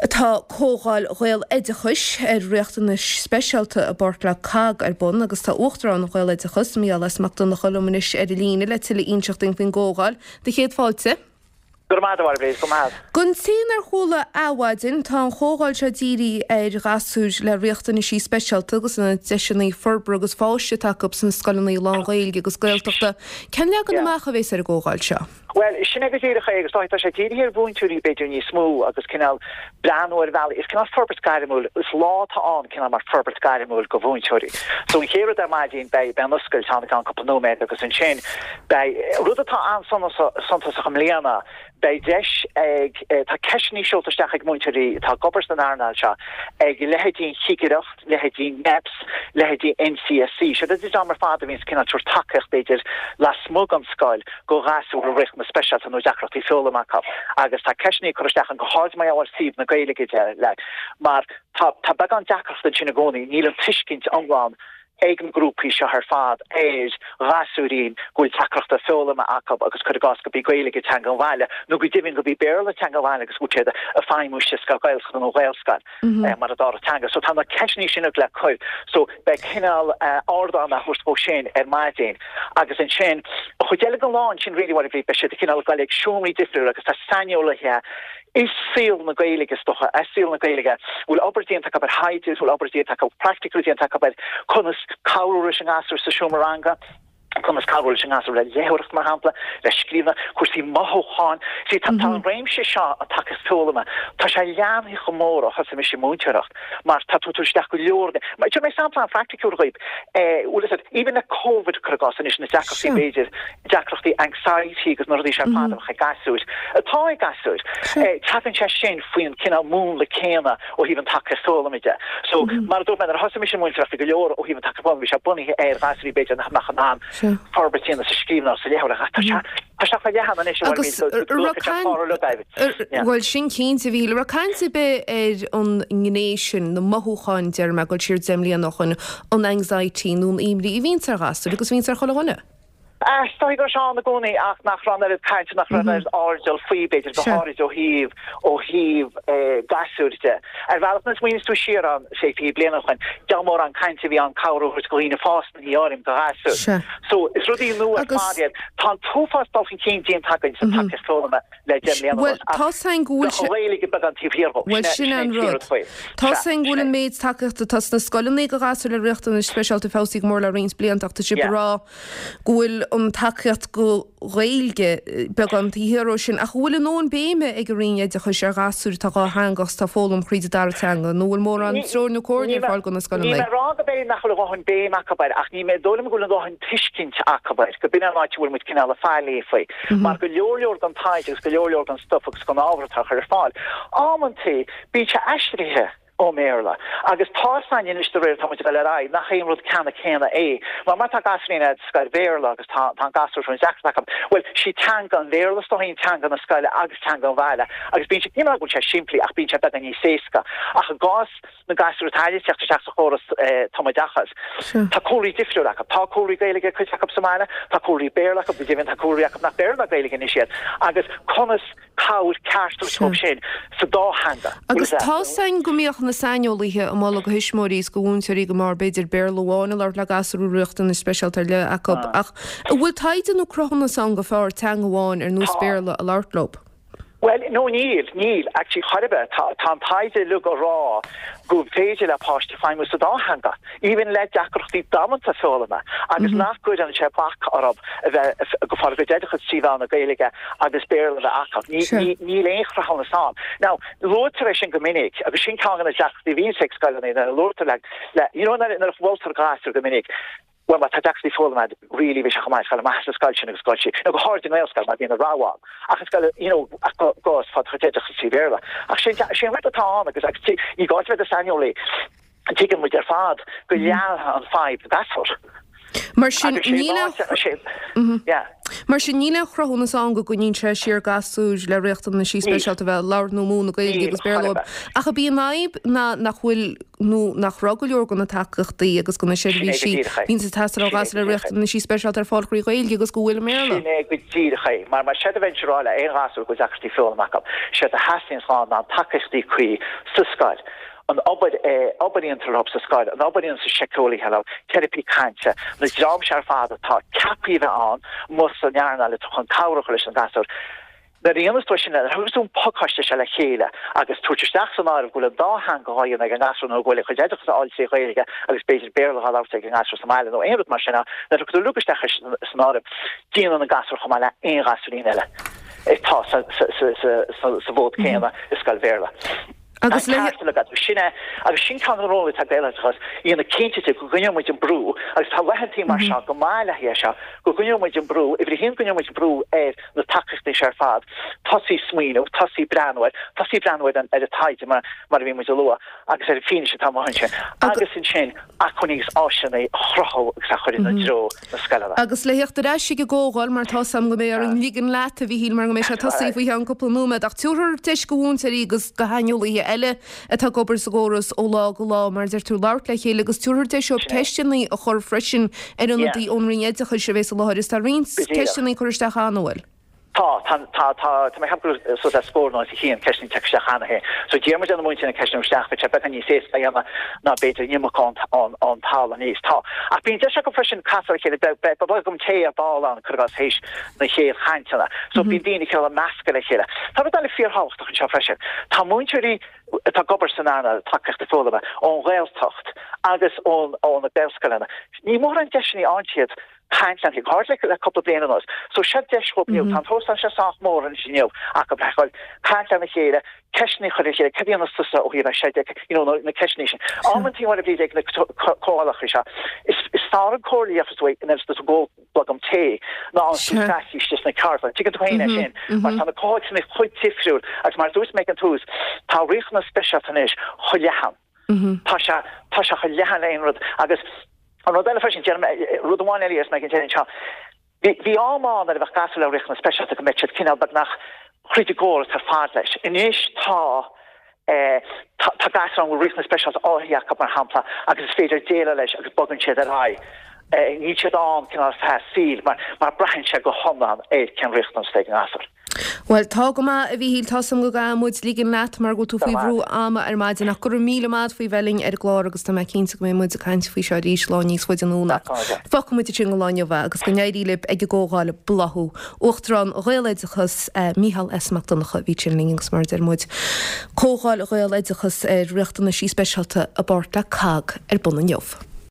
Tá Comhdháil Ghaeloideachais ar Riachtanais Speisialta i bpáirt le COGG ar bun agus tá Uachtarán Ghaeloideachas, Mícheál S. Mac Donncha liom anois ar an líne le tuilleadh a inseacht dúinn faoin gcomhdháil. Do chéad fáilte. Go raibh maith agat, a Mháire Bhríd, go raibh maith. Don té nár chuala adhmhaidin, tá an chomhdháil seo dírithe ar ghasúir le riachtanaisí speisialta agus na deiseanna forbartha agus fáis atá acu sna scoileanna lán-Ghaeilge agus Gaeltachta. Cén leagan amach a bhéas ar an gcomhdháil seo? Bhuel, sin é go díreach é agus tá sé dírithe ar mhúinteoirí b'fhéidir níos mó agus cineál breathnú ar bhealaí, is cineál forbairt gairmiúil, is lá atá ann cineál mar forbairt gairmiúil do mhúinteoirí. So an chéad rud ar maidin beidh, beidh an oscailt ann i gceann cúpla nóiméad agus ansin beidh, rud atá an-suntasach i mbliana, beidh deis ag, tá ceisteanna seolta isteach ag múinteoirí atá ag obair san earnáil seo ag leithéidí an Chigireacht, leithéidí NEPS, leithéidí NCSC, siad an dream ar fad a bhíonns cineál tabhairt tacaíocht b'fhéidir lasmuigh den scoil go ghasúir a bhfuil riachtanais speisialta nó deacrachtaí foghlama acu agus tá ceisteanna curtha isteach ann go háirid mar gheall ar thaobh na Gaeilge de like mar tá tá beagán deacracht ansin i gcónaí, níl an tuiscint iomlán ag na grúpaí seo ar fad ar ghasúirín go bhfuil deacrachtaí foghlama acu agus cuir i gcás gurb í Gaeilge teanga an bhaile nó go deimhin gurb í Béarla teanga an bhaile agus go bhfuil siad ag feidhmiú sa scoil Ghaeltachta nó Ghaelscoil. mar an dara teanga. So tá na ceisteanna sin le cur. So beidh cineál ardán á thabhairt dhó sin ar maidin agus ansin an chuid eile den lá ansin really what beidh siad cineál ag dul ag seomraí difriúla agus tá saineolaithe i saol na Gaeilge is dócha, i saol na Gaeilge, bhfuil obair déanta acu ar thaighde, bhfuil obair déanta acu, practical déanta acu ar conas cabhrú leis an ngasúr sa seomra ranga. conas cabhrú leis an ngasúr le léitheoireacht, mar shampla, le scríbhneoireacht, cúrsaí mothúcháin. See, tá an réimse seo, an tacaíocht foghlama, tá sé leathnaithe chomh mór ó thosaigh mise ag múinteoireacht, mar tá tú ag tabhairt isteach go leor de. Mar, tabharfaidh mé sampla an-phraiticiúil dhaoibh. Eh, bhfuil fhios agat, even le Covid, cuir i gcás, anois na deacrachtaí, b'fhéidir, deacrachtaí anxiety agus na rudaí seo ar fad a bheadh ag gasúir, atá ag gasúir, eh, tagann sé sin faoin cineál múnla céanna ó thaobh an tacaíocht foghlama de. So, mar a dúirt mé, nuair a thosaigh mise ag múinteoireacht, bhí go leor ó thaobh an tacaíocht foghlama, bhí sé bunaithe ar ghasúirí b'fhéidir nach mbeadh in ann forbairt a dhéanamh sa scríbhneoireacht, sa léitheoireacht, ach tá sé, tá sé chomh leathan anois, Agus raibh caint, bhuel sin cinnte, a Mhíchíl, raibh caint ar bith ar an ngné sin, na mothúcháin, déarfaidh mé, ag dul siar 10 mbliana ó shoin, an anxiety nó an imní a bhíonns ar ghasúir agus a bhíonns ar chuile dhuine? Is dóigh go raibh sé ann i gcónaí ach nach raibh an oiread cainte, nach raibh an oiread airdeall faoi, b'fhéidir, go háirid ó thaobh, ó thaobh gasúir de. Ar bhealach, nuair a smaoiníos tú siar ann, sé, 20 bliain ó shoin, diabhal mórán cainte a bhí ann cabhair a thabhairt do dhaoine fásta, ní áirím, do ghasúir. So, is rudaí nua ar fad iad. Tá an t-uafás dul chun cinn déanta againn sa tacaíocht foghlama. le 10 mbliana anuas ach tá's againn go bhfuil sé. Ghaeilge beagán taobh thiar dhó. Bhuel, sin é an rud. Tá's againn go bhfuil an méid tacaíochta atá sna scoileanna do ghasúir le riachtanais speisialta feabhsaithe go mór le roinnt blianta ach tá sibh ag rá go bhfuil an tacaíocht do Ghaeilge beagán taobh thiar dhó sin. Ach an bhfuil a ndóthain béime ag an Roinn Oideachais ar ghasúir atá dhátheangach is atá ag foghlaim thríd an dara teanga nó an bhfuil mórán treoir nó comhairle ar fáil do na scoileanna? Níl mé ag rá go b'fhéidir nach bhfuil a dhóthain béim acu air ach ní dóigh liom go bhfuil a dhóthain tuiscint acu air, go b'in an áit a bhfuil muid cineál ag faillí faoi. Mar go leor leor den taighde agus go leor leor den stuif agus den ábhar atá á chur ar fáil, amantaí bíonn sé aistrithe ón mBéarla. Agus tá's againn anois de réir atá muid ag dul ar aghaidh nach aon rud ceannann céanna é. Mar má tá gasúirín a'd sa scoil Bhéarla agus tá tá an gasúr seo deacracht acu, bhuel, sí teanga an Bhéarla is dóigh teanga na scoile agus teanga an bhaile agus bíonn sé, ní mar go bhfuil sé simplí ach bíonn sé beagán níos éasca. Ach i gcás na gasúir atá ag teacht isteach sa chóras tumoideachais. Tá cúlraí difriúil acu. Tá cúlraí Gaeilge ag cuid acu sa mbaile, tá cúlraí Béarla acu, go deimhin tá cúlraí acu nach Béarla ná Gaeilge anois iad. Agus conas cabhair ceart a thabhairt dóibh sin sa dá theanga. Agus tá's againn go mbíodh na saineolaithe ag moladh do thuismitheoirí is do mhúinteoirí go mb'fhearr b'fhéidir Béarla amháin a labhairt le gasúir a bhfuil riachtanais speisialta ar leith acu. Ach an bhfuil taighde nó cruthúnas ann gur fearr teanga amháin ar nós Béarla a labhairt leo? Bhuel, no níl, níl, actually chor ar bith. Tá, tá an taighde uilig ag rá go féidir le páiste feidhmiú sa dá theanga, even le deacrachtaí damanta foghlama, agus nach gcuireann sé bac orthu a bheith ag fáil a gcuid oideachais trí mheán na Gaeilge agus Béarla a bheith acu. Ní, ní, níl aon chruthúnas ann. Now, luaitear é sin go minic, agus sin ceann de na deacrachtaí a bhíonns ag scoileanna nuair a luaitear le, le, you know, nuair a mholtar gasúr go minic, Bhuel, má tá deacrachtaí foghlama agat, really bheadh sé chomh maith scoil maith sa scoil sin agus scoil sí, nó go háirid i nGaelscoil mar bíonn an rogha ann. Ach i scoil, you know, ach go, go, is fáil do chuid oideachais trí Bhéarla. Ach sin, sin an rud atá ann agus, agus ní gá duit a bheith i do shaineolaí, tuigeann muid ar fad go leanfaidh an fadhb gasúr. Mar sin, níl aon. Mar sin, níl aon chruthúnas ann go gcoinníonn sé siar gasúir le riachtanaisí speisialta a bheith ag labhairt nó múineadh Gaeilge agus Béarla dóibh. Ach ab í an fhadhb ná nach bhfuil nó nach raibh go leor de na tacaíochtaí agus de na seirbhísí a bhíonns ag teastáil ó ghasúir le riachtanaisí speisialta ar fáil trí Ghaeilge agus go bhfuil i mBéarla. Sin é go díreach é. Mar mar séard a bheinnse a rá le aon ghasúr go bhfuil deacrachtaí foghlama acu, séard a theastaíonns ná na tacaíochtaí cuí sa scoil. an obair obair a dhéantar leo sa scoil, an obair a dhéanann síceolaithe leo, teiripí cainte, na dream seo ar fad atá ceaptha a bheith ann amuigh san earnáil atá chun cabhrú leis an ghasúr. Nuair a dhéanas tú é sin, nuair a thugas tú an pacáiste seo le chéile agus tabhairt isteach san áireamh go bhfuil an dá theanga dhá dhéanamh ag an ngasúr nó go bhfuil a chuid oideachas á fháil trí Ghaeilge agus b'fhéidir Béarla dhá labhairt ag an ngasúr sa mbaile nó aon rud mar sin, nuair a thugann tú uilig isteach san áireamh, déanann an gasúr chomh maith le aon ghasúirín eile atá sa bhfód céanna i scoil Bhéarla. Agus le. Ceart agat. Sin é. Agus sin ceann de na rólanna atá ag Gaeloideachas, dhéanamh cinnte de go gcoinneoidh muid an brú, agus tá laethantaí mar seo go maith le haghaidh é seo, go gcoinneoidh muid an brú, uimhir a haon, go gcoinneoidh muid brú ar na tacaíochtaí seo ar fad, tosaí ag smaoineamh, tosaí ag breathnú air, tosaí ag breathnú ar an ar an taighde mar mar a bhí muid a lua, agus ar an bhfianaise atá amuigh ansin, agus ansin acmhainní agus áiseanna a chruthú agus a chur ina dtreo. na scoileanna. Agus le theacht ar ais ag an gcomhdháil, mar tá 's a'm go mbeidh orainn ligean leat, a Mhíchíl, mar go mbeidh sé tosaithe faoi cheann cúpla nóiméad, ach tabharfar deis go mhúinteoirí agus go shaineolaithe eile atá ag obair sa gcóras ó lá go lá, mar a deir tú, labhairt le chéile agus tabharfar deis dóibh ceisteanna a chur freisin ar ionadaí ón Roinn Oideachais a bheas i láthair. Is tá roinnt ceisteanna curtha isteach cheana, an bhfuil? Tá, tá, tá, tá, tá mé ag ceapadh go raibh suas le scór nó os a chionn ceisteanna tagtha isteach cheana féin. So d'iarr muid ar na múinteoirí na ceisteanna a chur isteach, bheadh sé beagán níos éasca a dhéanamh ná b'fhéidir an iomarca ón, ón, ón talamh aníos. Tá. Ach bíonn deis acu freisin casadh ar a chéile, beidh, beidh, beidh bolgam tae ar ball ann, cuir i gcás, théis na chéad chainteanna. So bíonn daoine cineál ag meascadh le chéile. Tá rud eile fíorthábhachtach anseo freisin. Tá múinteoirí atá ag obair san earnáil tacaíochta foghlama ón Ghaeltacht agus ón, ó na Gaelscoileanna. Ní mórán deiseanna a fhaigheann siad caint lena chéile le cúpla bliain anuas. So seo deis dhóibh inniu. Tá an t-óstán seo sách mór anois inniu acu le dhul caint lena chéile, ceisteanna a chur ar a chéile, cad a dhéanas tusa ó thaobh é seo de, you know, na ceisteanna sin. Amantaí mar a bhí ag na comhdhálacha seo, is fearr an comhairle a gheofas tú nuair is tú ag ól blogam tae ná an tú scaití istigh sna ceardlanna. Tuigeann tú féin é sin, mar tá na comhthéacsanna chomh difriúil agus mar a dúirt mé ag an tús, tá riachtanas speisialta anois chomh leathan. Tá sé, tá sé chomh leathan le aon rud agus an rud eile freisin, déarfaidh mé, rud amháin eile a déarfas mé ag an deireadh anseo, bhí, bhí am ann nuair a bheadh gasúr le riachtanas speisialta go mbeadh siad cineál beagnach thríd an gcóras ar fad leis. Anois tá, eh, tá, tá gasúr ann go bhfuil riachtanas speisialta áirithe acu mar shampla agus is féidir déileáil leis agus bogann siad ar aghaidh. Eh, níl siad ann cineál ar feadh a saoil mar, mar braitheann sé go hiomlán ar cén riachtanas atá ag an ngasúr. Bhuel, tá go maith, a Mhíchíl, tá 's a'm go gcaithfidh muid ligean leat mar go bhfuil tú faoi bhrú ama ar maidin ach go raibh míle maith a't faoi bheith linn ar an gclár agus tá mé cinnte go mbeidh muid ag caint faoi seo arís lá níos faide anonn ach fágfaidh muid ansin do lá inniu é agus go n-éirí libh ag an gcomhdháil Bláthú. Uachtarán Ghaeloideachas, Mícheál S. Mac Donncha a bhí ansin linn agus mar a deir muid, Comhdháil Ghaeloideachas ar Riachtanaisí Speisialta i bpáirt le COGG ar bun inniu.